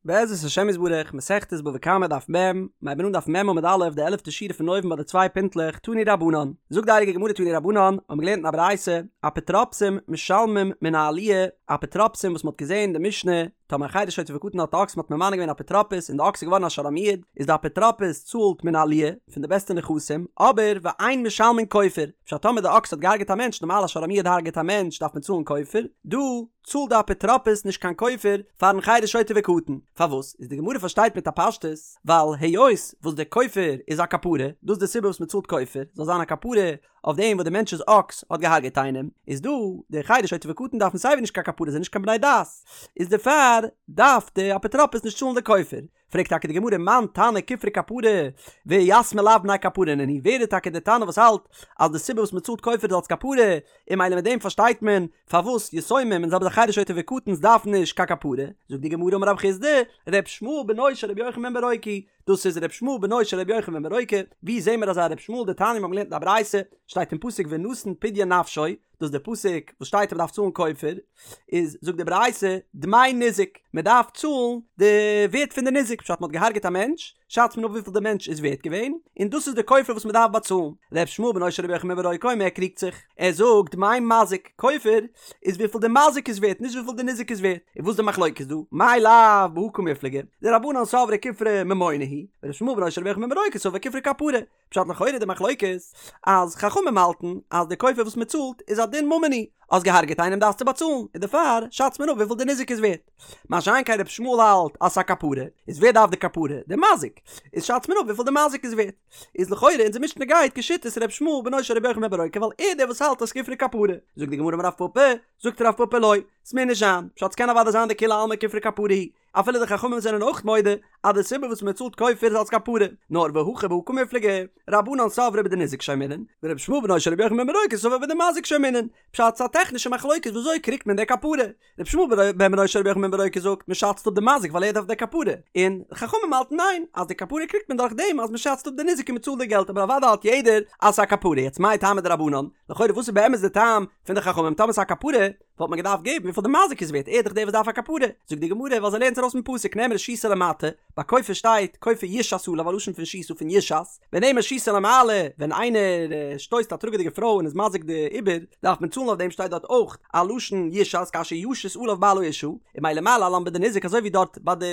בעזרת השם יתברך, מסכת בבא קמא דף מ', מיר הייבן אן דף מ' עמוד א', די עלעפטע שורה פון אויבן ביי די צוויי פינטלעך, תנו רבנן. זאגט די הייליגע גמרא תנו רבנן, האבן מיר געלערנט אין א ברייתא, אפוטרופסים משלמים מן העליה, אפוטרופסים וואס מען האט געזען אין די משנה, טאמער א חרש שוטה וקטן האט א אקס מען האט ממנה געווען אפוטרופוס און די אקס איז געווארן א שור המועד, איז די אפוטרופוס צאלט מן העליה, פון די בעסטע נכסים, אבער ואין משלמין כופר, פשט טאמער די אקס האט געהארגעט א מענטש, נארמאל א שור המועד הארגעט א מענטש דארף מען צאלן כופר, דא, צאלט די אפוטרופוס נישט קיין כופר פארן חרש שוטה וקטן, פארוואס? איז די גמרא פארשטייט מיט א פשטות, ווייל היות וואס די כופר איז א כפרה, דאס איז די סיבה וואס מען צאלט כופר, זאל זיין א כפרה אויף דעם וואס די מענטש'ס אקס האט געהארגעט איינעם, איז דא די חרש שוטה וקטן דארפן סייווי נישט קיין כפרה זענען נישט קיין בני דעת, איז דערפאר דארף די אפוטרופוס נישט צאלן די כופר. פרעגט טאקע די גמרא מאן תנא כופרא כפרה ויתמי לאו בני כפרה נינהו, ווער איז טאקע די תנא וואס האלט אז די סיבה וואס מען צאלט כופר איז אלס כפרה, און ממילא מיט דעם פארשטייט מען פארוואס יתומים און זעלבע זאך חרש שוטה וקטן'ס דארפן נישט קיין כפרה, זאגט די גמרא אמר רב חסדא, ר' ישמעאל בנו של ר' יוחנן בן ברוקה, דאס איז ר' ישמעאל בנו של ר' יוחנן בן ברוקה, ווי זעהן מיר אזא ר' ישמעאל דתניא מיר האבן געלערנט אין א ברייתא, שטייט אין פסוק ונתן פדיון נפשו, דאס איז די פסוק וואס שטייט אז מ'דארף צאלן כופר, איז זאגט די ברייתא דמי ניזק, מען דארף צאלן די ווערט פון די ניזק, פשט מען האט געהארגעט א מענטש, שאצט מען אפ וויפיל די מענטש איז ווערט געווען, און דאס איז די כופר וואס מען דארף באצאלן. ר' ישמעאל בנו של רבי יוחנן בן ברוקה אומר ער קריגט זיך, ער זאגט דמי מזיק, כופר איז וויפיל די מזיק איז ווערט, נישט וויפיל די ניזק איז ווערט, און וואס איז די מחלוקת דא? מאי לאו בהא קמיפלגי, דרבנן סברי כופרא ממונא הוא, ור' ישמעאל בנו של רבי יוחנן בן ברוקה סבר כופרא כפרה, פשט לכאורה די מחלוקת אז חכמים האלטן אז די כופר וואס מען צאלט איז א דין ממוני, האסט געהארגעט איינעם דארפסטו באצאלן, און דערפאר שאצט מען אפ וויפיל די ניזק איז ווערט. מה שאין כן רבי ישמעאל האלט אז ס'איז א כפרה, איז ווער דארף די כפרה? די מזיק. איז שאצט מען אפ וויפיל די מזיק איז ווערט. איז לכאורה אונזער משנה גייט כשיטת רבי ישמעאל בנו של רבי יוחנן בן ברוקה ווייל ער דער וואס האלט אז כופרא כפרה. זאגט די גמרא אמר רב פפא, זאגט רב פפא לא, ס'מוז נישט זיין, פשט ס'קען אוודאי זיין דכולי עלמא כופרא כפרה הוא, אפילו די חכמים זענען אויך מודה אז די סיבה וואס מען צאלט כופר איז אלס כפרה, נאר והכא בהא קמיפלגי, רבנן סברי בדניזק שיימינן, ורבי ישמעאל בנו של רבי יוחנן בן ברוקה סבר בדמזיק שיימינן, פשט ס'א טעכנישע מחלוקת ווי אזוי קריגט מען די כפרה, רבי ישמעאל בן בנו של רבי יוחנן בן ברוקה זאגט מען שאצט אפ די מזיק ווייל ער דארף די כפרה, און חכמים האלטן ניין אז די כפרה קריגט מען דורך דעם אז מען שאצט אפ די ניזק און מען צאלט די געלט אבער אוודאי האלט יעדער אז ס'א כפרה, יעצט מאי טעמא דרבנן, לכאורה וואס איז באמת די טעם פון די חכמים טאמער ס'א כפרה, וואלט מען געדארפט געבן וויפיל די מזיק איז ווערט, ער איז דאך דער וואס דארף א כפרה. זאגט די גמרא, ווייל זיי לערנען עס ארויס פון פסוק, נאמרה שיתה למטה, ביי כופר שטייט כופר יושת עליו א לשון פון שיתה פון יושת, ונאמר שיתה למעלה, ווען איינער שטויסט א טראגעדיגע פרוי און איז מזיק די עובר, דארף מען צאלן אויף דעם שטייט דארט אויך א לשון יושת כאשר ישית עליו בעל האשה, און ממילא מה להלן בדניזק אזוי ווי דארט ביי די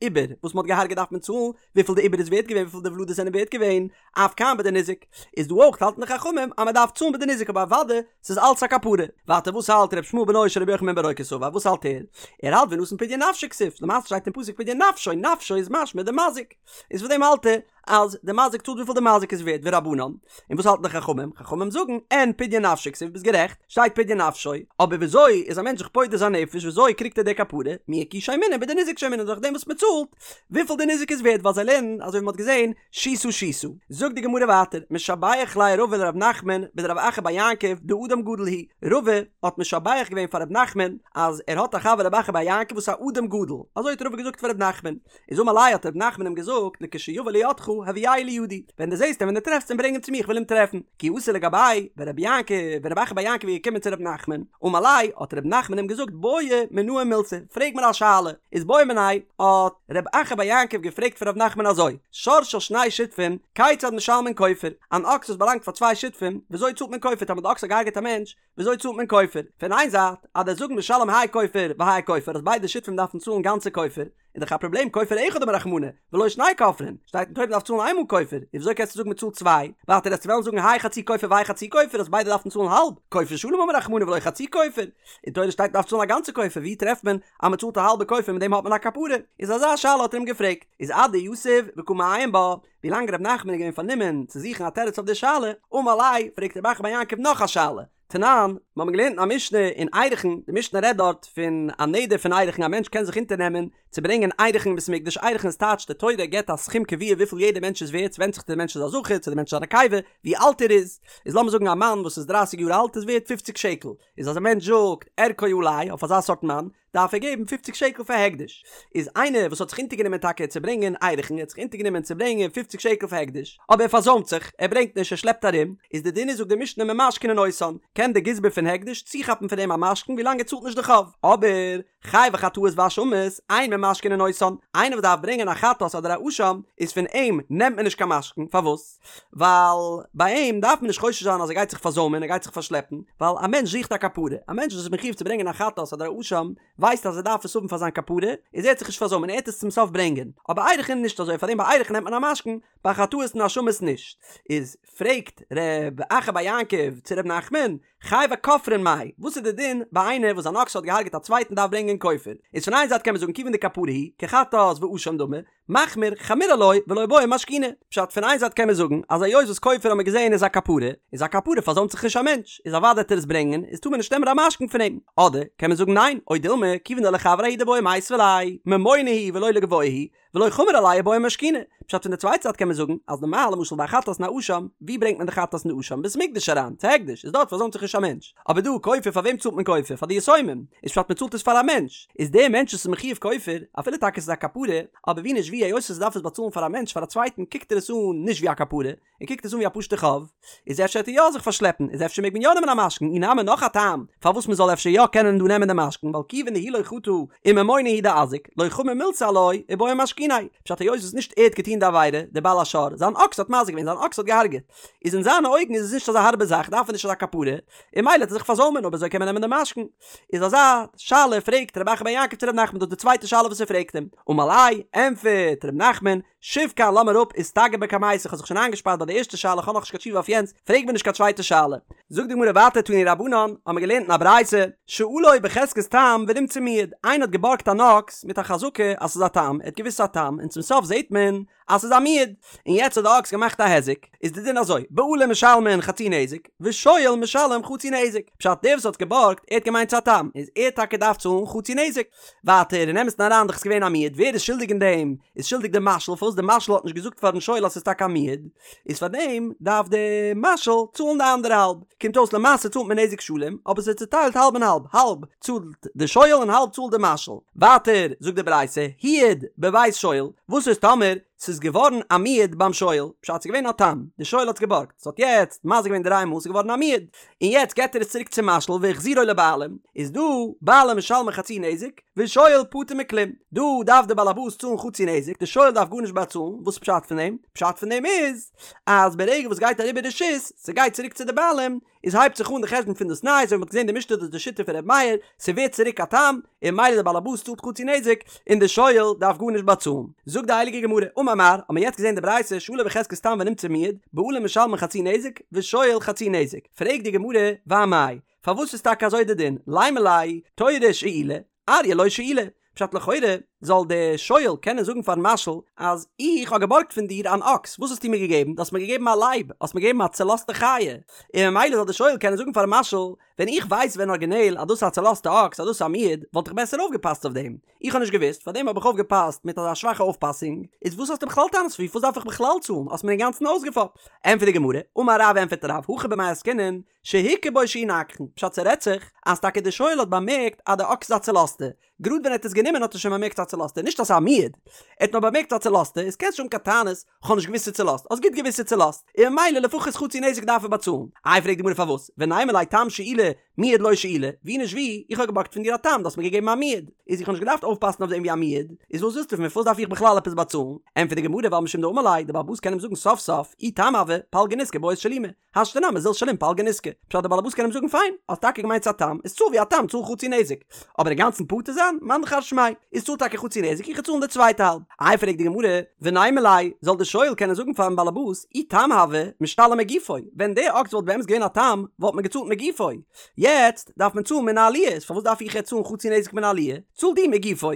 עובר וואס מען האט געהארגעט דארף מען צאלן וויפיל די עובר איז ווערט געווען וויפיל די ולדות זענען ווערט געווען, אף כאן בדניזק, איז דא אויך האלטן די חכמים אז מען דארף צאלן בדניזק אבער אוודאי ס'איז אלץ א כפרה. ווייטער וואס האלט ר' ישמעאל בנו של רבי יוחנן בן ברוקה סבר וואס האלט ער? ער האלט ונתן פדיון נפשו כתיב, למעשה שטייט אין פסוק פדיון נפשו, נפשו איז משמע די מזיק, איז פון דעם האלט ער אז די מזיק צאלט וויפיל די מזיק איז ווערט ורבנן, און וואס האלטן די חכמים? חכמים זאגן אין פדיון נפשו כתיב ביסט גערעכט, שטייט פדיון נפשו, אבער וויאזוי איז א מענטש זיך פודה זיין נפש וויאזוי קריגט ער די כפרה, מאי שיימינן בדניזק שיימינן דורך דעם וואס מען צאלט וויפיל די ניזק איז ווערט ווייל זיי לערנען אזוי ווי מען האט געזען שיתה שיתה. זאגט די גמרא ווייטער, משבח ליה רבא לרב נחמן בדרב אחא בר יעקב דאדם גדול הוא, רבא האט משבח געווען פאר רב נחמן אז ער האט א חבר רב אחא בר יעקב וואס איז א אדם גדול, אזוי האט רבא געזאגט פאר רב נחמן, איז אמר ליה האט רב נחמן אים געזאגט לכשיבא לידך הביאהו לידי, ווען דו זעסט אים ווען דו טרעפסט אים ברענג אים צו מיר איך וויל אים טרעפן, כי אתא לגביה, ווען רבי יעקב ווען רב אחא בר יעקב איז געקומען צו רב נחמן, אמר ליה האט רב נחמן אים געזאגט בעי מינאי מילתא, פרעג מיר א שאלה, איז בעא מיניה האט ר' אחא בר יעקב געפרעגט פון ר' נחמן אזוי, שור של שני שותפים, כיצד משלמין כופר? אן אקס וואס באלאנגט פאר צוויי שותפים, וויאזוי צאלט מען כופר? טאמער די אקס האט געהארגעט א מענטש, וויאזוי צאלט מען כופר? פון איין זייט, אז דו'סט זאגן משלם האי כופר והאי כופר אז ביידע שותפים דארפן צאלן גאנצע כופר, איז דאך א פראבלעם כופר אחד אמר רחמנא, ולא שני כופרין, שטייט אין תורה מ'דארף צאלן איינמאל כופר, איז וויאזוי קענסטו זאגן מ'צאלט צוויי? ווייטער וועסטו וועלן זאגן האי חצי כופר והאי חצי כופר אז ביידע דארפן צאלן האלב, כופר שלם אמר רחמנא ולא חצי כופר, אין תורה שטייט מ'דארף צאלן א גאנצע כופר, ווי טרעפט מען אז מ'צאלט א האלבע כופר מיט דעם האט מען א כפרה? איז אזא שאלה האט ער אים געפרעגט, איז אדיתיב וקא מעיין בה, ווילאנג ר' נחמן איז געווען פארנומען צו זוכן א תירוץ אויף די שאלה, אמר ליה, פרעגט רב אחא בר יעקב נאך א שאלה, תנן, מיר האבן געלערנט אין א משנה אין ערכין, די משנה רעדט דארט פון א נדר פון ערכין, א מענטש קען זיך אונטערנעמען צו ברענגען ערכין אין בית המקדש, ערכין איז טייטש די תורה געבט א סכום קבוע וויפיל יעדער מענטש איז ווערט, ס'ווענדט זיך צו די מענטש איז א זכר צו די מענטש איז א נקבה, ווי אלט ער איז, איז לאמיר זאגן א מאן וואס איז דרייסיג יאר אלט איז ווערט פופציג שקל, איז אז א מענטש זאגט ערכו עלי אויף אזא סארט מאן, דארף ער געבן פופציג שקל פאר הקדש. איז איינער וואס האט זיך אונטערגענומען טאקע צו ברענגען ערכין, ער האט זיך אונטערגענומען צו ברענגען פופציג שקל פאר הקדש, אבער ער פארזוימט זיך, ער ברענגט נישט, ער שלעפט ארום, איז די דין איז זאגט די משנה ממשכנין אותן, קען די גזבר פון הקדש צוכאפן פון אים א משכון ווילאנג ער צאלט נישט די חוב, אבער חייבי חטאות ואשמות, אין ממ. ממשכנין אותן, איינער וואס דארף ברענגען א חטאת אדער א אשם, איז פון אים נעמט מען נישט קיין משכון, פארוואס? ווייל ביי אים דארף מען נישט חושש זיין אז ער גייט זיך פארזוימען, ער גייט זיך פארשלעפן, ווייל א מענטש זוכט א כפרה, א מענטש וואס איז מחיוב צו ברענגען א חטאת אדער א אשם, ווייסט אז ער דארף עס האבן פאר זיין כפרה, איז ער וועט זיך נישט פארזוימען, ער וועט עס צום סוף ברענגען. אבער ערכין נישט אזוי, פארדעם ביי ערכין נעמט מען א משכון, ביי חטאות און אשמות נישט. איז פרעגט ר' אחא בר יעקב צו ר' נחמן, חייבי כופרין מאי, וואס איז די דין ביי איינער וואס זיין אקס האט געהארגעט א צווייטן דארף ברענגען כופר? איז פון איין זייט קען מען זאגן כיוון דכפרה הוא, כחטאת ואשם דמי, מחמיר חמיר עילויה ולא בעי משכוני. פשט, פון איין זייט קען מען זאגן אז היות וואס כופר האט מען געזען איז א כפרה, איז א כפרה פארזוימט זיך נישט א מענטש, איז אוודאי וועט ער עס ברענגען, איז טאר מען נישט נעמען א משכון פון אים. אדער קען מען זאגן ניין, או דילמא, כיוון דלחבריה הוא דבעי מיתבה ליה, ממונא הוא ולא לגבוה הוא, ולא חמיר עליה ובעי משכוני. פשט פון די צווייטע זייט קען מען זאגן אז נארמאל למשל ביי א חטאת און א אשם, ווי ברענגט מען די חטאת און די אשם? בית מקדש אריין, צו הקדש, איז דארט פארזוימט זיך נישט א מענטש. אבער דא כופר פאר וועם צאלט מען כופר? פאר די יתומים. איז פשט מען צאלט עס פאר א מענטש. איז דער מענטש וואס איז מחיוב כופר, אפילו טאקע עס איז א כפרה, אבער ווי נישט ווי היות ער דארף עס באצאלן פאר א מענטש פאר א צווייטן קוקט ער עס אן נישט ווי א כפרה, ער קוקט עס אן ווי א פשוטע חוב, איז אפשר וועט ער יא זיך פארשלעפן, איז אפשר מעג מען יא נעמען א משכון, אי נמי נאך א טעם פארוואס מען זאל אפשר יא קענען דא נעמען די משכון, ווייל כיוון דהוא לא חטא וממונא הוא דאזיק, לא חמיר מילתא עילויה ובעי משכוניה, פשט היות וואס נישט ער האט געטון די עבירה, דער בעל השור, זיין אקס האט מזיק געווען, זיין אקס האט געהארגעט, איז אין זיינע אויגן איז עס נישט אזא הארבע זאך, דארף ער נישט אזא כפרה, און ממילא וועט ער זיך פארזוימען, אויב אזוי קען מען נעמען די משכון. איז אזא שאלה פרעגט רב אחא בר יעקב צו ר' נחמן דאס איז די צווייטע שאלה וואס ער פרעגט אים, אמר ליה, ענטפערט ר' נחמן, שב כאן לאז מיר אפ איסתגר בקמייתא איך האב זיך שוין איינגעשפארט ביי די ערשטע שאלה איך האב נאכנישט קיין תשובה אויף יענץ פרעג מיר נישט קיין צווייטע שאלה. זאגט די גמרא ווייטער תנו רבנן האמיר געלערנט אין א ברייתא שאלו בחזקת תם ונמצא מועד איינער האט געבארגט אן אקס מיט א חזקה אז ס'איז א תם ער האט געוואוסט ס'איז א תם און צום סוף זעט מען אז ס'איז א מועד און יעצט האט די אקס געמאכט א היזק איז די דין אזוי בעלים משלמין חצי נזק ושואל משלם חצי נזק פשט דער וואס האט געבארגט ער האט געמיינט ס'איז א תם איז ער טאקע דארף צאלן חצי נזק ווייטער אין אמת'ן אריין דאך איז געווען א מועד ווער איז שולדיג אין דעם איז שולדיג די משאיל פארוואס די משאיל האט נישט געזאגט פארן שואל אז ס'איז טאקע א מועד איז פאר דעם דארף די משאיל צאלן די אנדערע האלב קומט אויס למעשה צאלט מען נזק שלם אבער ס'איז צוטיילט האלב און האלב האלב צאלט די שואל און האלב צאלט די משאיל ווייטער זאגט די ברייתא הועד בבית שואל וואס איז טאמער ס'איז געווארן א מועד ביים שואל פשט ס'איז געווען א תם די שואל האט עס געבארגט ס'האט יעצט מזיק געווען דריי מאל ס'איז געווארן א מועד און יעצט געט ער עס צוריק צום משאיל והחזירו לבעלים, איז דא בעלים משלמין חצי נזק, ושואל פטור מכלום, דא דארף די באלעבאס צאלן חצי נזק, די שואל דארף גארנישט באצאלן, וואס איז פשט פון דעם? פשט פון דעם איז, אז ברגע וואס גייט אריבער רשות, ס'גייט צוריק צו די בעלים, איז הייבט זיך אן די חשבון פון דאס ניי, אזוי ווי מ'האט געזען די משנה דאס איז די שיטה פון ר' מאיר, ס'ווערט צוריק א תם, און ממילא די באלעבאס צאלט חצי נזק, און די שואל דארף גארנישט באצאלן. זאגט די הייליגע גמרא, אמר מר, האט מען יעצט געזען די ברייתא, שאלו בחזקת תם ונמצא מועד, בעלים משלמין חצי נזק, ושואל חצי נזק. פרעגט די גמרא, ואמאי, פארוואס איז טאקע אזוי די דין, לימא ליה, תורא שאילי, אריא לא שאילי. פשט לכאורה זאל די שואל קענען זאגן פארן משאיל אז איך האב געבארגט פון דיר אן אקס, וואס האסטו מיר געגעבן? דו האסט מיר געגעבן א לייב, האסט מיר געגעבן א צעלאזטע חיה. און ממילא זאל די שואל קענען זאגן פארן משאיל, ווען איך ווייס ווען ארגינעל אז דאס איז א צעלאזטע אקס אז דאס איז א מועד, וואלט איך בעסער אויפגעפאסט אויף דעם. איך האב נישט געוואוסט, פארדעם האב איך אויפגעפאסט מיט אזא שוואכע אויפפאסונג. איז וואס האסטו בכלל טענות פארוואס דארף איך בכלל צאלן? האסט מיר אינגאנצן אויסגעפאפט. ענטפערט די גמרא, אמר רב ענטפערט רב, הכא במאי עסקינן, שהוכר בו שהוא נגחן, פשט ס'רעדט זיך אז טאקע די שואל האט באמערקט אז די אקס איז א צעלאזטע, גראד ווען ער האט עס גענומען האט ער שוין באמערקט ס'איז א צעלאזטע, נישט אז ס'איז א מועד, ער האט נאר באמערקט ס'איז א צעלאזטע, איז קענסט נישט האבן קיין טענות, כ'האב נישט געוואוסט ס'איז צעלאזט, האסט גוט געוואוסט ס'איז צעלאזט, און ממילא לפחות חצי נזק דארף ער באצאלן. איי פרעגט די גמרא פארוואס, ונימא ליה תם שאילי מועד לא שאילי, ווי נישט ווי, איך האב געבארגט פון דיר א תם, דו האסט מיר געגעבן א מועד, איז איך האב נישט געדארפט אויפפאסן אויף דעם ווי א מועד, איז וואס ווילסטו פון מיר פארוואס דארף איך בכלל עפעס באצאלן? ענטפערט די גמרא ווייל משום דאמר ליה, די בעל הבית קען אים זאגן סוף סוף, אי תם הוה, פלגא נזקא בעית שלומי, השתא נמי זיל שלים פלגא נזקא. פשט די באלעבאס קען אים זאגן פיין, האסט טאקע געמיינט ס'א תם, איז צאל ווי א תם, צאל חצי נזק. אבער אינגאנצן פטור זיין? מאן דכר שמיה. איז צאל טאקע חצי נזק, איך וועל צאלן די צווייטע האלב. איי פרעגט די גמרא, ונימא ליה, זאל די שואל קענען זאגן פארן באלעבאס, אי תם הוה, משתלם מגופו, ווען די אקס וואלט באמת געווען א תם, וואלט מען געצאלט מגופו. יעצט דארף מען צאלן מן העליה, איז פארוואס דארף איך יעצט צאלן חצי נזק מן העליה? צאל דו מגופו.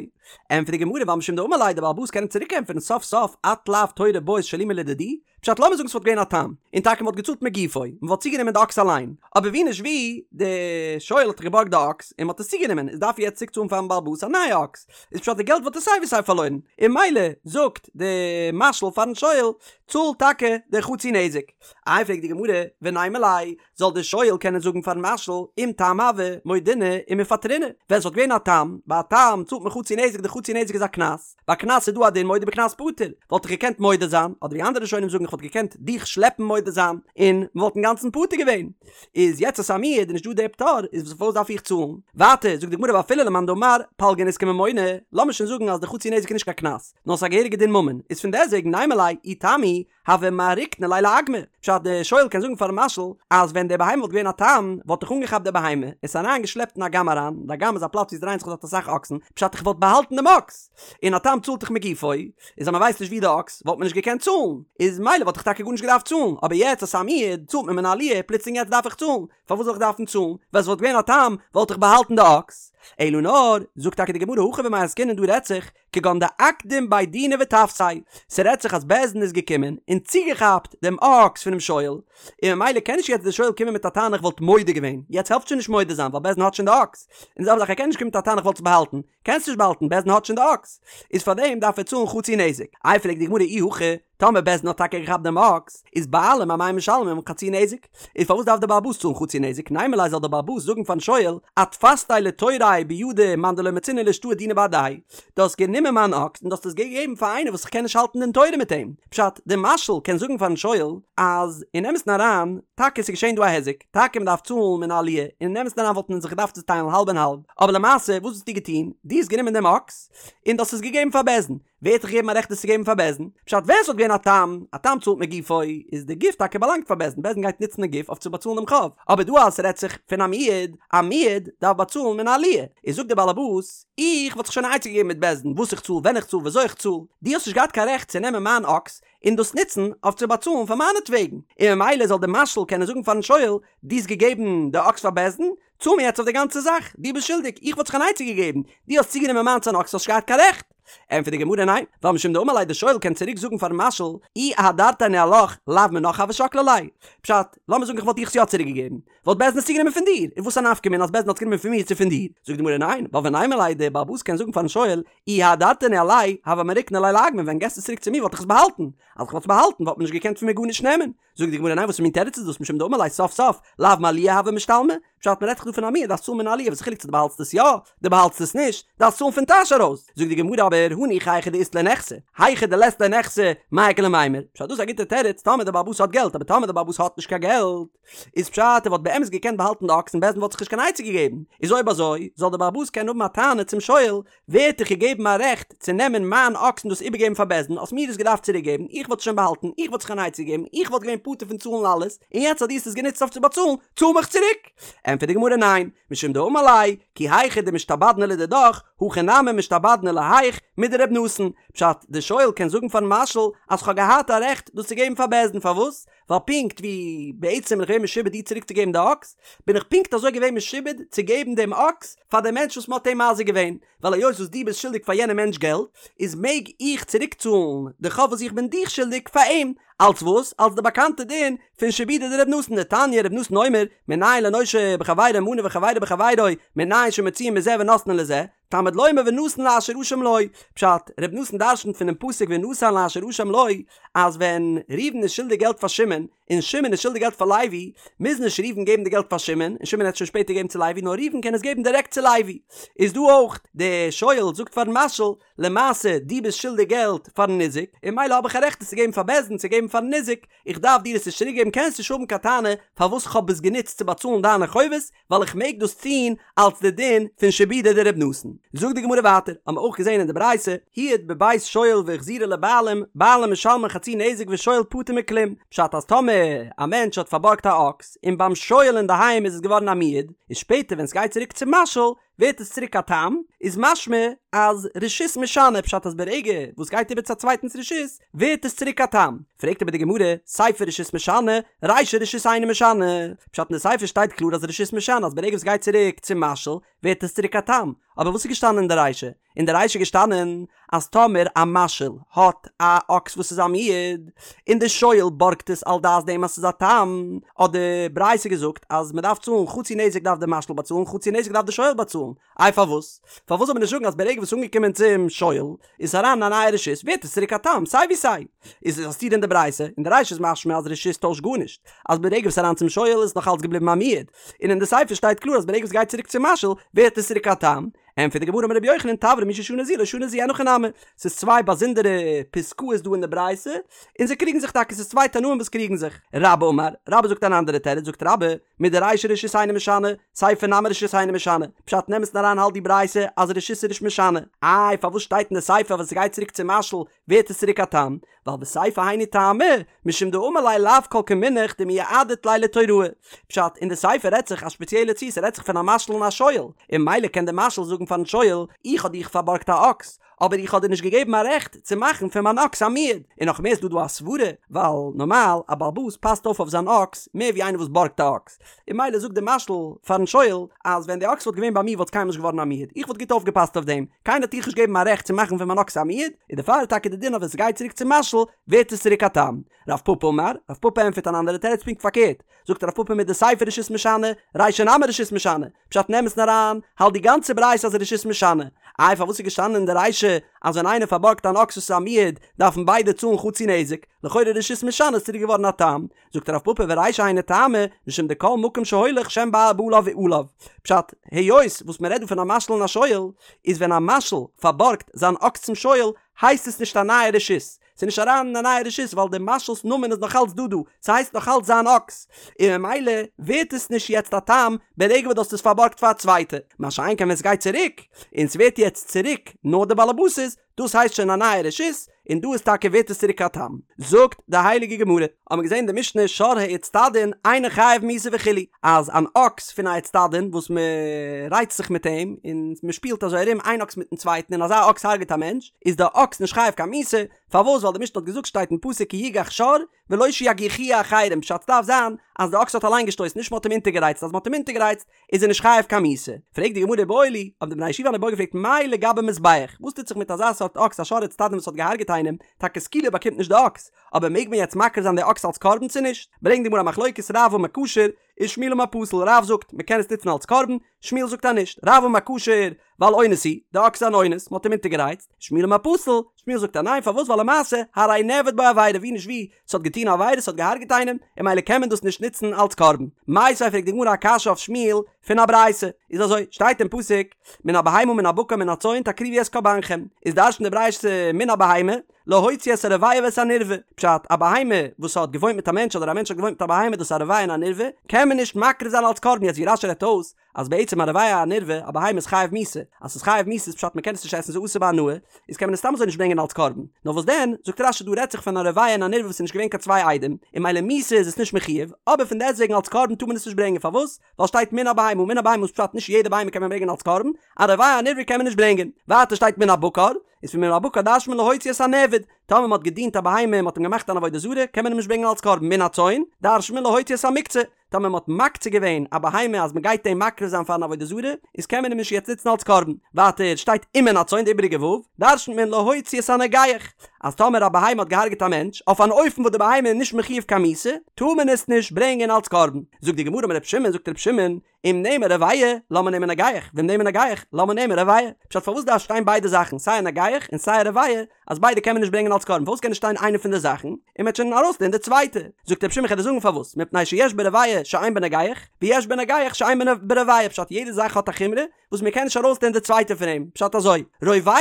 ענטפערט די גמרא, ווייל משום דאמר ליה, די באלעבאס קען אים צוריק ענטפערן סוף סוף, את לאו תורא בעית שלומי לדידי, פשט לאמיר זאגן ס'וואלט געווען א תם, און טאקע מ'וואלט געצאלט מגופו, מ'וואלט צוגענומען די אקס אליין, אבער ווי נישט ווי, די שואל האט דאך געבארגט די אקס, און מ'האט עס צוגענומען, איז דארף ער יעצט צוריק צאלן פארן בעל הבית א נייע אקס, איז פשט די געלט וואלט ער סיי ווי סיי פארלוירן, און ממילא זאגט די משאיל פארן שואל, צאל טאקע די חצי נזק. איי פרעגט די גמרא, ונימא ליה, זאל די שואל קענען זאגן פארן משאיל, אם תם הוה, מודינא ומפטרינא, ווען ס'וואלט געווען א תם, ביי א תם צאלט מען חצי נזק. נזק, די חצי נזק איז א קנס, ביי קנס איז דא א דין מודה בקנס פטור, וואלט איך געקענט מודה זיין, אדער ווי אנדערע ראשונים זאגן איך וואלט געקענט דיך שלעפן מודה זיין, און מ'וואלט אינגאנצן פטור געווען. איז יעצט אז ס'איז א מועד איז נישט דא דער פטור, איז פארוואס דארף איך צאלן? ווייטער זאגט די גמרא ואפילו למאן דאמר פלגא נזקא ממונא, לאמיר שוין זאגן אז די חצי נזק איז נישט קיין קנס, נאר ס'איז א געהעריגע דין ממון, איז פון דעסוועגן נימא ליה אי תם הוא הוה מעריקנא ליה לאגמא, פשט די שואל קען זאגן פארן משאיל אז ווען די בהמה וואלט געווען א תם וואלט איך אנגעכאפט די בהמה עס אריין געשלעפט אין אגם אריין, די אגם איז א פלאץ ווי עס דרייען זיך דארט אסאך אקסן, פשט איך וואלט באהאלטן דעם אקס, און א תם צאלט דאך מגופו, איז אז מען ווייסט נישט ווי די אקס וואלט מען נישט געקענט צאלן, איז מילא וואלט איך טאקע גארנישט געדארפט צאלן, אבער יעצט אז ס'איז א מועד צאלט מען מן העליה, פלוצלינג יעצט דארף איך צאלן, פארוואס זאל איך דארפן צאלן, ווען עס וואלט געווען א תם וואלט איך באהאלטן די אקס, אלא נאר, זאגט טאקע די גמרא הכא במאי עסקינן דא רעדט זיך, כגון דאקדים בי דינא ותפסיה, ס'רעדט זיך אז בית דין איז געקומען און צוגעכאפט דעם אקס פונעם שואל, און ממילא קען נישט יעצט דער שואל קומען מיט א טענה איך וואלט מודה געווען, יעצט העלפט שוין נישט מודה זיין ווייל בית דין האט שוין די אקס, און די זעלבע זאך ער קען נישט קומען מיט א טענה איך וואלט עס באהאלטן, קענסט נישט באהאלטן בית דין האט שוין די אקס, איז פארדעם דארף ער צאלן חצי נזק. איי פרעגט די גמרא אי הכי, טאמער בית דין האט טאקע געכאפט דעם אקס, איז בעלים אמאי משלמים חצי נזק? איז פארוואס דארף דער בעל הבית צאלן חצי נזק? נימא ליה זאל דער בעל הבית זאגן פארן שואל, אתפסתיה לתוראי בידא מאן דלא מצינא לאשתעויי דינא בהדיה, דו האסט גענומען מיין אקס און דו האסט עס געגעבן פאר איינער וואס איך קען נישט האלטן דין תורה מיט אים. פשט, דער משאיל קען זאגן פארן שואל אז אין אמת'ן אריין, טאקע עס איז געשען דא א היזק, טאקע מען דארף צאלן מן העליה, און אין אמת'ן אריין וואלט מען זיך געדארפט צוטיילן האלב און האלב, אבער למעשה וואס האסטו געטון? דו האסט גענומען דעם אקס און דו האסט עס געגעבן פאר בית דין. ווער האט דיך געגעבן א רעכט עס צו געבן פאר בית דין? פשט ווען ס'וואלט געווען א תם, א תם צאלט מגופו, איז די גוף טאקע באלאנגט פאר בית דין, בית דין גייט נוצן די גוף אויף צו באצאלן דעם חוב, אבער דא אז ס'רעדט זיך פון א מועד, א מועד דארף באצאלן מן העליה, איז זאגט דער באלעבאס, איך וואלט זיך שוין א עצה געגעבן מיט בית דין וואס איך צאל, ווען איך צאל, וויאזוי איך צאל, דו האסט נישט געהאט קיין רעכט צו נעמען מיין אקס און דאס נוצן אויף צו באצאלן פאר מיינעטוועגן, און ממילא זאל דער משאיל קענען זאגן פארן שואל, דו האסט געגעבן די אקס פאר בית דין, צאל מיר יעצט אויף די גאנצע זאך, דו ביסט שולדיג, איך וואלט זיך אן עצה געגעבן, דו האסט צוגענומען מיינס אן אקס האסט נישט געהאט קיין רעכט. ענטפערט די גמרא ניין, ווייל משום דאמר ליה די שואל קען צוריק זאגן פארן משאיל, אי אהדרתיה ניהלך לאו מינך הוה שקלי ליה. פשט, לאמיר זאגן איך וואלט דיך עס יא צוריק געגעבן, וואלט בית דין עס צוגענומען פון דיר, און וואס א נפקא מינה אז בית דין האט עס גענומען פון מיר צו פון דיר? זאגט די גמרא ניין, ווייל ונימא ליה די בעל הבית קען זאגן פארן שואל, אי אהדרתיה ניהלי, הוה מעריקנא ליה לאגמא, ווען געסט עס צוריק צו מיר וואלט איך עס באהאלטן, אז איך וואלט עס באהאלטן וואלט מען נישט געקענט פון מיר גארנישט נעמען. זאגט די גמרא ניין וואס מין תירוץ איז דאס משום דאמר ליה סוף סוף לאו מעליה הוה משתלמי, פשט מען רעדט דאך דא פון א מועד דארפסט צאלן מן העליה וואס איז חילוק צו דו באהאלטסט עס יא דו באהאלטסט עס נישט דארפסט צאלן פון טאש ארויס, זאגט די גמרא אבער הניחא היכא דאית ליה נכסי היכא דלית ליה נכסי מאי איכא למימר, פשט דאס איז א גוטע תירוץ טאמער די בעל הבית האט געלט אבער טאמער די בעל הבית האט נישט קיין געלט איז פשט ער וואלט באמת געקענט באהאלטן די אקס און בית דין וואלט זיך נישט קיין עצה געגעבן איז אויב אזוי זאל די בעל הבית קענען האבן א טענה צום שואל ווער האט דיך געגעבן א רעכט צו נעמען מיין אקס און דאס איבערגעבן פאר בית דין, האסט מיר דאס געדארפט צוריקגעבן, איך וואלט עס שוין באהאלטן, איך וואלט זיך אן עצה געגעבן, איך וואלט געווען פטור פון צאלן אלעס, און יעצט אז דו האסט עס גענוצט אויף צו באצאלן, צאל מיך צוריק! ענטפערט די גמרא ניין, משום דאמר ליה, כי היכי דמשתעבדנא לדידך, הכי נמי משתעבדנא להיך, מדר' נתן. פשט, די שואל קען זאגן פארן משאיל אז כ'האב געהאט א רעכט דאס צו געבן פאר בית דין, פארוואס? ווייל פונקט ווי בעצם בין איך געווען משועבד דיר צוריק צו געבן די אקס, בין איך פונקט אזוי געווען משועבד צו געבן דעם אקס פאר דעם מענטש וואס מען האט אים מזיק געווען, ווייל היות וואס דו ביסט שולדיג פאר יענעם מענטש געלט, איז מעג איך צוריק צאלן די חוב וואס איך בין דיך שולדיג פאר אים, אלס וואס? אלס די באקאנטע דין פון שעבודא דר' נתן, דתניא ר' נתן אומר, מנין לנושה בחבירו מנה וחבירו בחבירו, מנין שמוציאין מזה ונותנין לזה, תלמוד לומר ונתן לאשר אשם לו, פשט, ר' נתן דרשנ'ט פונעם פסוק ונתן לאשר אשם לו, אז ווען ראובן איז שולדיג געלט פאר שמעון, און שמעון איז שולדיג געלט פאר לוי, מוז נישט ראובן געבן די געלט פאר שמעון, און שמעון העט שוין שפעטער געבן צו לוי, נאר ראובן קען עס געבן דירעקט צו לוי. איז דא אויך, די שואל זאגט פארן משאיל, למעשה דו ביסט שולדיג געלט פארן ניזק, און ממילא האב איך א רעכט עס צו געבן פאר בית דין צו געבן פארן ניזק, איך דארף דיר עס נישט צוריק געבן קענסט נישט האבן קיין טענה פארוואס כ'האב עס גענוצט צו באצאלן דיינע חובות, ווייל איך מעג דאס טון אלס די דין פון שעבודא דר' נתן. זאגט די גמרא ווייטער, האבן מיר אויך געזען אין די ברייתא, הועד בבית שואל והחזירו לבעלים, בעלים משלמין חצי נזק ושואל פטור מכלום, פשט אז טאמער א מענטש האט פארבארגט א אקס, און ביים שואל אינדערהיים איז עס געווארן א מועד, איז שפעטער ווען סגייט צוריק צום משאיל, ווערט עס צוריק א תם, איז משמע אז רשות משנה, פשט אז ברגע וואס גייט איבער צו א צווייטנס רשות, ווערט עס צוריק א תם. פרעגט אבער די גמרא, סיפא רשות משנה, רישא רשות אינה משנה, פשט אין די סיפא שטייט קלאר אז רשות משנה אז ברגע וואס גייט צוריק צום משאיל, ווערט עס צוריק א תם, אבער וואס איז געשטאנען אין די רישא? אין די רישא איז געשטאנען אז טאמער א משאיל האט א אקס וואס איז א מועד, און די שואל בארגט עס על דעת דעם אז ס'איז א תם, האט די ברייתא געזאגט אז מ'דארף צאלן חצי נזק דארף די משאיל באצאלן חצי נזק דארף די שואל באצאלן, איי פארוואס? פארוואס זאל מען נישט זאגן אז ברגע וואס ס'איז אנגעקומען צום שואל איז עס אריין אין א נייע רשות ווערט עס צוריק א תם סיי ווי סיי? איז עס א סתירה אין די ברייתא, אין די רישא איז משמע אז רשות טוישט גארנישט, אז ברגע וואס ס'איז אריין צום שואל איז עס נאך אלץ געבליבן א מועד, און אין די סיפא שטייט קלאר אז ברגע וואס ס'גייט צוריק צום משאיל ווערט עס צוריק א תם, ענטפערט די גמרא אמר רבי יוחנן תברא מי ששנה זו לא שנה זו אין הכי נמי, ס'איז צוויי באזונדערע פסקאות דא אין די ברייתא, און זיי קריגן זיך טאקע, ס'איז צוויי תנאים וואס קריגן זיך. רבה אמר, רבה זאגט אן אנדערע תירוץ, זאגט רבה, מדרישא רשות אינו משנה, סיפא נמי רשות אינו משנה, פשט אין אמת'ן אריין האלט די ברייתא אז רשות איז נישט משנה, איי פארוואס שטייט אין די סיפא אז ווען ס'גייט צוריק צום משאיל ווערט עס צוריק א תם? ווייל בסיפא היינו טעמא, משום דאמר ליה לאו כל כמינך דמייעדת ליה לתוראי. פשט, אין די סיפא רעדט זיך א שפעציעלע ציור, ס'רעדט זיך פון א משאיל און א שואל, און ממילא קען דער משאיל זאגן פארן שואל, איך האב דיך פארבארגט א אקס, אבער איך האב דיר נישט געגעבן א רעכט צו מאכן פון מיין אקס א מועד. און נאך מער איז דא דא א סברה, ווייל נארמאל א בעל הבית פאסט אויף אויף זיין אקס מער ווי איינער וואס בארגט א אקס, און ממילא זאגט דער משאיל פארן שואל, אז ווען די אקס וואלט געווען ביי מיר וואלט עס קיינמאל נישט געווארן א מועד, איך וואלט גוט אויפגעפאסט אויף דעם, קיינער האט דיך נישט געגעבן א רעכט צו מאכן פון מיין אקס א מועד, און דערפאר איז טאקע די דין אז ווען ס'גייט צוריק צום משאיל ווערט עס צוריק א תם. רב פפא אמר, רב פפא ענטפערט אן אנדערע תירוץ פונקט פארקערט, זאגט רב פפא מדסיפא רשות משנה, רישא נמי רשות משנה, פשט אין אמת'ן אריין, האלט די גאנצע ברייתא אז רשות משנה. איי פארוואס איז געשטאנען אין די רישא אז ווען איינער פארבארגט אן אקס וואס איז א מועד דארפן ביידע צאלן חצי נזק, לכאורה רשות משנה איז צוריק געווארן א תם, זאגט רב פפא ורישא היינו טעמא, משום דכל מקום שהולך שם בעליו עליו. פשט, היות וואס מען רעדט דא פון א משאיל און א שואל, איז ווען א משאיל פארבארגט זיין אקס צום שואל, הייסט עס נישט א נייע רשות, ס'איז נישט אריין אין א נייע רשות ווייל דער משאיל'ס נאמען איז נאך אלץ דא דא, ס'הייסט נאך אלץ זיין אקס, און ממילא ווערט עס נישט יעצט א תם ברגע וואס דו האסט עס פארבארגט פאר א צווייטע, מה שאין כן ווען ס'גייט צוריק, און ס'ווערט יעצט צוריק נאר די באלעבאס'ס, דאס הייסט שוין א נייע רשות, און דא איז טאקע ווערט עס צוריק א תם. זאגט די הייליגע גמרא, האבן מיר געזען אין די משנה שור האיצטדין אינו חייב מיתה וכו', אז אן אקס פון א איצטדין וואס מען רייצט זיך מיט אים און מען שפילט אזוי ארום איין אקס מיטן צווייטן און אזא אקס הרג'ט א מענטש, איז די אקס נישט חייב קיין מיתה, פארוואס ווייל די משנה האט געזאגט שטייט אין פסוק כי יגח שור ולא שיגיחוהו אחרים פשט ס'דארף זיין אז די אקס האט אליין געשטויסן נישט מען האט אים אונטערגערייצט אז מען האט אים אונטערגערייצט איז ער נישט חייב קיין מיתה. פרעגט די גמרא איבעיא להו, האבן די בני הישיבה אן איבעיא געפרעגט מאי לגבי מזבח, וואס טוט זיך מיט אזא סארט אקס א שור האיצטדין וואס האט געהארגעט איינעם, טאקע סקילה באקומט נישט די אקס, אבער מעג מען יעצט מקריב זיין די אקס אלס קרבן צו נישט? ברענגט די גמרא א מחלוקת רב אמר כשר, ושמואל אמר פסול, רב זאגט מען קען עס נוצן אלס קרבן, שמואל זאגט אז נישט, רב אמר כשר, ווייל אונס הוא, די אקס איז אן אונס, מען האט אים אונטערגערייצט, שמואל אמר פסול, שמואל זאגט אז ניין, פארוואס ווייל למעשה, הרי נעבד בו עבירה, ווי נישט ווי, ס'האט געטון א עבירה, ס'האט געהארגעט איינעם, און ממילא קען מען דאס נישט נוצן אלס קרבן. מיתיבי פרעגט די גמרא א קשיא אויף שמואל פון א ברייתא, איז אזוי, שטייט אין פסוק, מן הבהמה מן הבקר מן הצאן תקריבו את קרבנכם, איז דרש'נט די ברייתא מן הבהמה, להוציא את הרובע ואת הנרבע, פשט, א בהמה וואס האט געוואוינט מיט א מענטש אדער א מענטש האט געוואוינט מיט א בהמה דאס איז א רובע און א נרבע, קען מען נישט מקריב זיין אלס קרבן, יעצט ווי רש"י רעדט אויס, אז בעצם א רובע א נרבע, א בהמה איז חייב מיתה, אז ס'איז חייב מיתה איז פשט מ'קען עס נישט עסן ס'איז אסור בהנאה, איז קען מען עס סתם אזוי נישט ברענגען אלס קרבן, נאר וואס דען, זאגט רש"י דא רעדט זיך פון א רובע און א נרבע וואס איז נישט געווען קיין צוויי עדים, און ממילא מיתה איז עס נישט מחויב, אבער פון דעסטוועגן אלס קרבן טאר מען עס נישט ברענגען, פארוואס? ווייל שטייט מן הבהמה, מן הבהמה איז פשט נישט יעדע בהמה קען מען ברענגען אלס קרבן, א רובע א נרבע קען מען נישט ברענגען. ווייטער שטייט מן הבקר, איז פון מן הבקר דרש'נט מען להוציא את הנעבד, טאמער מען האט געדינט א בהמה און מען האט אים געמאכט אן עבודה זרה, קען מען אים נישט ברענגען אלס קרבן, מן הצאן דרש'נט מען להוציא את המוקצה, טאמער מען האט מקצה געווען א בהמה אז מען גייט אים מקריב זיין פארן עבודה זרה, איז קען מען אים נישט יעצט נוצן אלס קרבן. ווייטער שטייט ומן הצאן די איבעריגע ו', דרש'נט מען להוציא את הנוגח, אז טאמער א בהמה האט געהארגעט א מענטש, אויף אן אופן וואס די בהמה איז נישט מחויב קיין מיתה, טאר מען עס נישט ברענגען אלס קרבן. זאגט די גמרא אמר ר' שמעון, זאגט ר' שמעון, אם נאמר רובע, למה נאמר נוגח, ואם נאמר נוגח, למה נאמר רובע? פשט פארוואס דארף שטיין ביידע זאכן, סיי א נוגח און סיי א רובע, אז ביידע קען מען נישט ברענגען אלס קרבן, פארוואס קען נישט שטיין איינע פון די זאכן, און מ'וועט שוין ארויסלערנען די צווייטע? זאגט רבי שמעון כ'וועל דיר זאגן פארוואס, מפני שיש ברובע שאין בנוגח, ויש בנוגח שאין ברובע, פשט יעדע זאך האט א חומרא וואס מ'קען נישט ארויסלערנען די צווייטע פון אים, פשט אזוי, רובע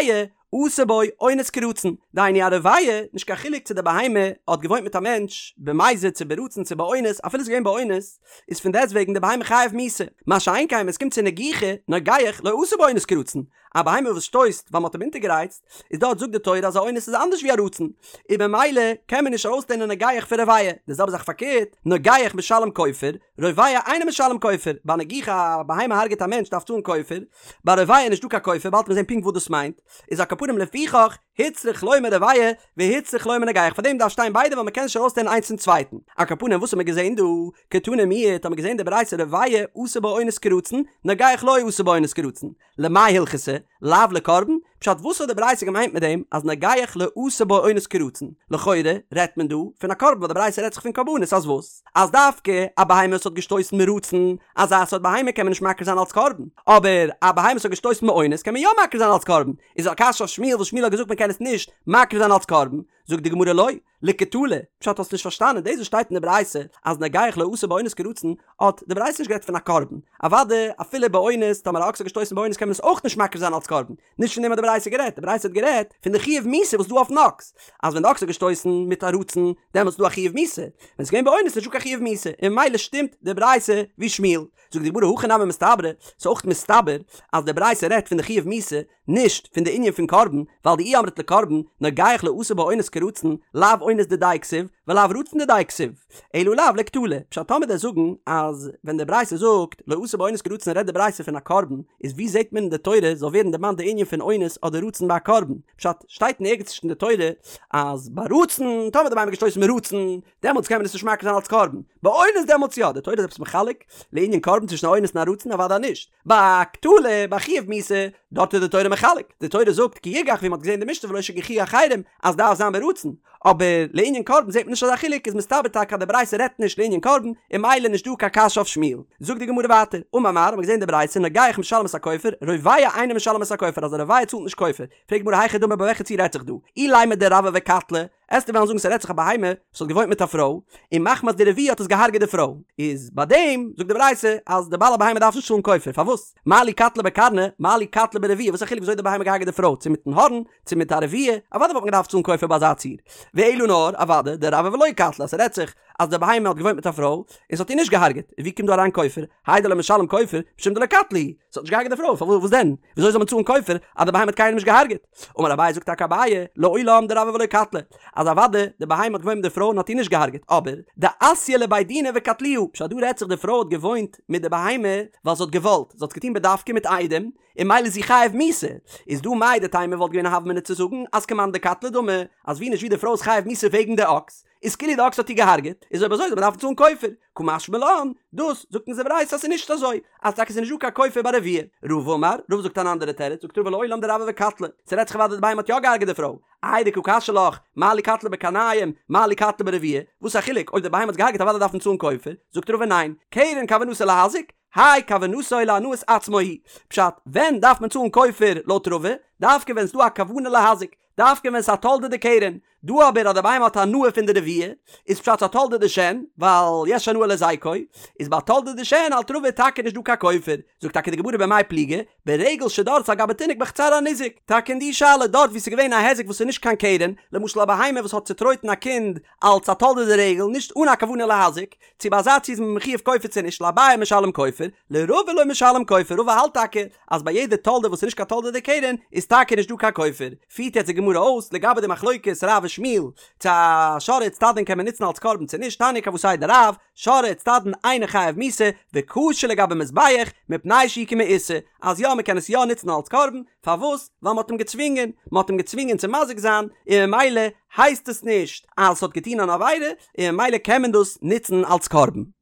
עשה בו אונס כרצון, דהיינו א רובע, נישט קיין חילוק צו די בהמה האט געוואוינט מיט א מענטש במזיד צו ברצון צו באונס, אפילו ס'איז געווען באונס, איז פון דעסטוועגן די בהמה חייב מיתה, מה שאין כן ווען עס קומט צו נגיחה, נוגח, לא עשה בו אונס כרצון, א בהמה וואס שטויסט ווייל מ'האט אים אונטערגערייצט, איז דארט זאגט די תורה אז א אונס איז אנדערש ווי א רצון, און במילא קען מען נישט ארויסלערנען נוגח פון רובע, די זעלבע זאך פארקערט, נוגח משלם כופר, רובע אינו משלם כופר, ביי נגיחה א בהמה הרג'ט א מענטש דארף צאלן כופר, ביי רובע איז נישטא קיין כופר, באלד וועט מען זען פונקט וואס דאס מיינט, איז על כל פנים לפיכך הוצרך לומר רובע והוצרך לומר נוגח, פאר דעם דארף שטיין ביידע ווייל מען קען נישט ארויסלערנען איינס פון צווייטן. על כל פנים וואס האט מען געזען דא? קתני מיהת האט מען געזען די ברייתא רובע עשה בו אונס כרצון, נוגח לא עשה בו אונס כרצון. למאי הלכתא? לאו לקרבן? פשט וואס האט די ברייתא געמיינט מיט דעם אז נוגח לא עשה בו אונס כרצון? לכאורה רעדט מען דא פון א קרבן ווייל די ברייתא רעדט זיך פון קרבנות אז וואס? אז דווקא א בהמה וואס האט געשטויסן מרצון, אזא סארט בהמה קען מען נישט מקריב זיין אלס קרבן, אבער א בהמה וואס האט געשטויסן מאונס קען מען יא מקריב זיין אלס קרבן, איז א קשיא אויף שמואל וואס שמואל האט געזאגט מען קען עס נישט מקריב זיין אלס קרבן? זאגט די גמרא לא, לקטלא, פשט האסט נישט פארשטאנען, דאס וואס שטייט אין די ברייתא אז נוגח לא עשה באונס כרצון, האט די ברייתא נישט גערעדט פון א קרבן, אוודאי אפילו באונס, טאמער א אקס האט געשטויסן באונס קען מען עס אויך נישט מקריב זיין אלס קרבן, נישט פון דעם האט די ברייתא גערעדט, די ברייתא האט גערעדט פון די חיוב מיתה וואס איז דא אויפן אקס, אז ווען די אקס האט געשטויסן מיט א רצון, דעמאלטס איז דא א חיוב מיתה, ווען עס איז געווען באונס איז נישטא קיין חיוב מיתה, און ממילא שטימט די ברייתא ווי שמואל. זאגט די גמרא הכי נמי מסתברא, ס'איז אויך מסתבר אז די ברייתא רעדט פון די חיוב מיתה, נישט פון די ענין פון קרבן, ווייל דאי אמרת לקרבן, נוגח לא עשה באונס כרצון, לאו אונס דידיה כתיב, ולאו רצון דידיה כתיב, אלא לאו לקטלא. פשט טאמער דו'סט זאגן אז ווען די ברייתא זאגט לא עשה באונס כרצון רעדט די ברייתא פון א קרבן, איז ווי זעט מען אין די תורה זאל ווערן דערמאנט די ענין פון אונס אדער רצון ביי א קרבן? פשט, שטייט אין ערגעץ נישט אין די תורה אז ביי רצון, טאמער די בהמה האט געשטויסן מיט רצון, דעמאלטס קען מען עס נישט מקריב זיין אלס קרבן. ביי אונס דעמאלטס יא, די תורה איז עפעס מחלק לענין קרבן צווישן א אונס און א רצון? אוודאי נישט. ביי קטלא, ביי חיוב מיתה, דארט איז די תורה מחלק. די תורה זאגט כי יגח ווי מען האט געזען אין די משנה ולא שיגיחוהו אחרים אז דארף זיין ברצון. אבער לענין קרבן זעט מען נישט אזא חילוק איז מסתבר טאקע אז די ברייתא רעדט נישט לענין קרבן און ממילא נישט דא קיין קשיא אויף שמואל. זאגט די גמרא ווייטער, אמר מר, האט מען געזען די ברייתא נוגח משלם את הכופר, רובע אינו משלם את הכופר אז א רובע צאלט נישט כופר. פרעגט די גמרא היכי דמי ביי וועלכע ציור רעדט זיך דא? אילימא דרבעה וקטלה, עסטו וועלן זאגן ס'רעדט זיך א בהמה וואס האט געוואוינט מיט א פרוי, און מחמת די רביעה האט עס געהארגעט די פרוי, איז ביי דעם זאגט די ברייתא אז די בעל הבהמה דארף נישט צאלן כופר, פארוואס? מה לי קטלה בקרנא, מה לי קטלה ברביעה, וואס א חילוק וויאזוי די בהמה געהארגעט די פרוי, צו מיטן הארן, צו מיט א רביעה, אוודאי וואלט מען געדארפט צאלן כופר ביי אזא ציור. ואלא נאר, אוודאי, דרבעה ולא קטלה, אז ס'רעדט זיך אז די בהמה האט געוואוינט מיט א פרוי, און ס'האט איר נישט געהארגעט, ווי קומט דא אריין כופר? האי דלא משלם כופר, משום דלא קטלה היא, ס'האט נישט געהארגעט די פרוי, פארוואס וואס דען? וויאזוי זאל מען צאלן כופר אז די בהמה האט קיינעם נישט געהארגעט? אמר אביי זאגט טאקע אביי, לעולם דרבעה ולא קטלה, אז אוודאי די בהמה האט געוואוינט מיט די פרוי און האט איר נישט געהארגעט, אבער דאתיא לבי דינא וקטלוה, פשט דא רעדט זיך די פרוי האט געוואוינט מיט די בהמה ווייל זי האט געוואלט, זי האט עס געטון בדווקא מיט עדים, און ממילא איז זי חייב מיתה, איז דא מהו דתימא וואלט געווען א הוה אמינא צו זאגן אז כמאן דקטלה דמי, אז ווי נישט ווי די פרוי איז חייב מיתה וועגן די אקס, איז כאילו די אקס האט איר געהארגעט, איז אויב אזוי זאל מען דארפן צאלן כופר, קא משמע לן, דאס זאגט אונז די ברייתא אז ס'איז נישט אזוי, אז טאקע ס'איז נישט דא קיין כופר ביי רביעה. רבא אמר, רבא זאגט אן אנדערע תירוץ, זאגט רבא לעולם דרבעה וקטלה, ס'רעדט זיך אוודאי די בהמה האט יא געהארגעט די פרוי, איי דקא קשיא לך, מה לי קטלה בקרניים, מה לי קטלה ברביעה, וואס א חילוק, אויב די בהמה האט געהארגעט אוודאי דארף מען צאלן כופר, זאגט רבא ניין, קרן כוונתו להזיק, האי כוונתו להנאת עצמו היא, פשט, ווען דארף מען צאלן כופר לויט רבא, דווקא ווען ס'דא א כוונה להזיק, דווקא ווען ס'איז א תולדה דקרן, דא אבער אז די בהמה האט הנאה פון די רביעה, איז פשט ס'איז א תולדה דשן, ווייל יש הנאה להזיקו, איז ביי תולדה דשן האלט רבא טאקע נישט דא קיין כופר, זאגט טאקע די גמרא במאי פליגי, ברגל שדרסה על גבי תינוק בחצר הניזק, טאקע אין די שאלה דארט ווי ס'איז געווען א היזק וואס איז נישט קיין קרן, למשל א בהמה וואס האט צוטרויטן א קינד אלץ א תולדה דרגל נישט אן א כוונה להזיק, צו ביי אזא ציור איז מען מחויב כופר צו נישט, לאביי משלם כופר, לרבא לא משלם כופר, רבא האלט טאקע אז ביי יעדע תולדה וואס איז נישט קיין תולדה דקרן איז טאקע נישט דא קיין כופר, פירט יעצט די גמרא אויס לגבי די מחלוקת רב ושמואל צו א שור האיצטדין קען מען נוצן אלס קרבן צו נישט, תניא כוותיה דרב, שור האיצטדין אינו חייב מיתה, וכשר לגבי מזבח, מפני שהוא כמעושה, אז יא מען קען עס יא נוצן אלס קרבן, פארוואס? ווייל מען האט אים געצווינגען, מען האט אים געצווינגען צו מזיק זיין, און ממילא הייסט עס נישט אז עס האט געטון אן עבירה, און ממילא קען מען דאס נוצן אלס קרבן.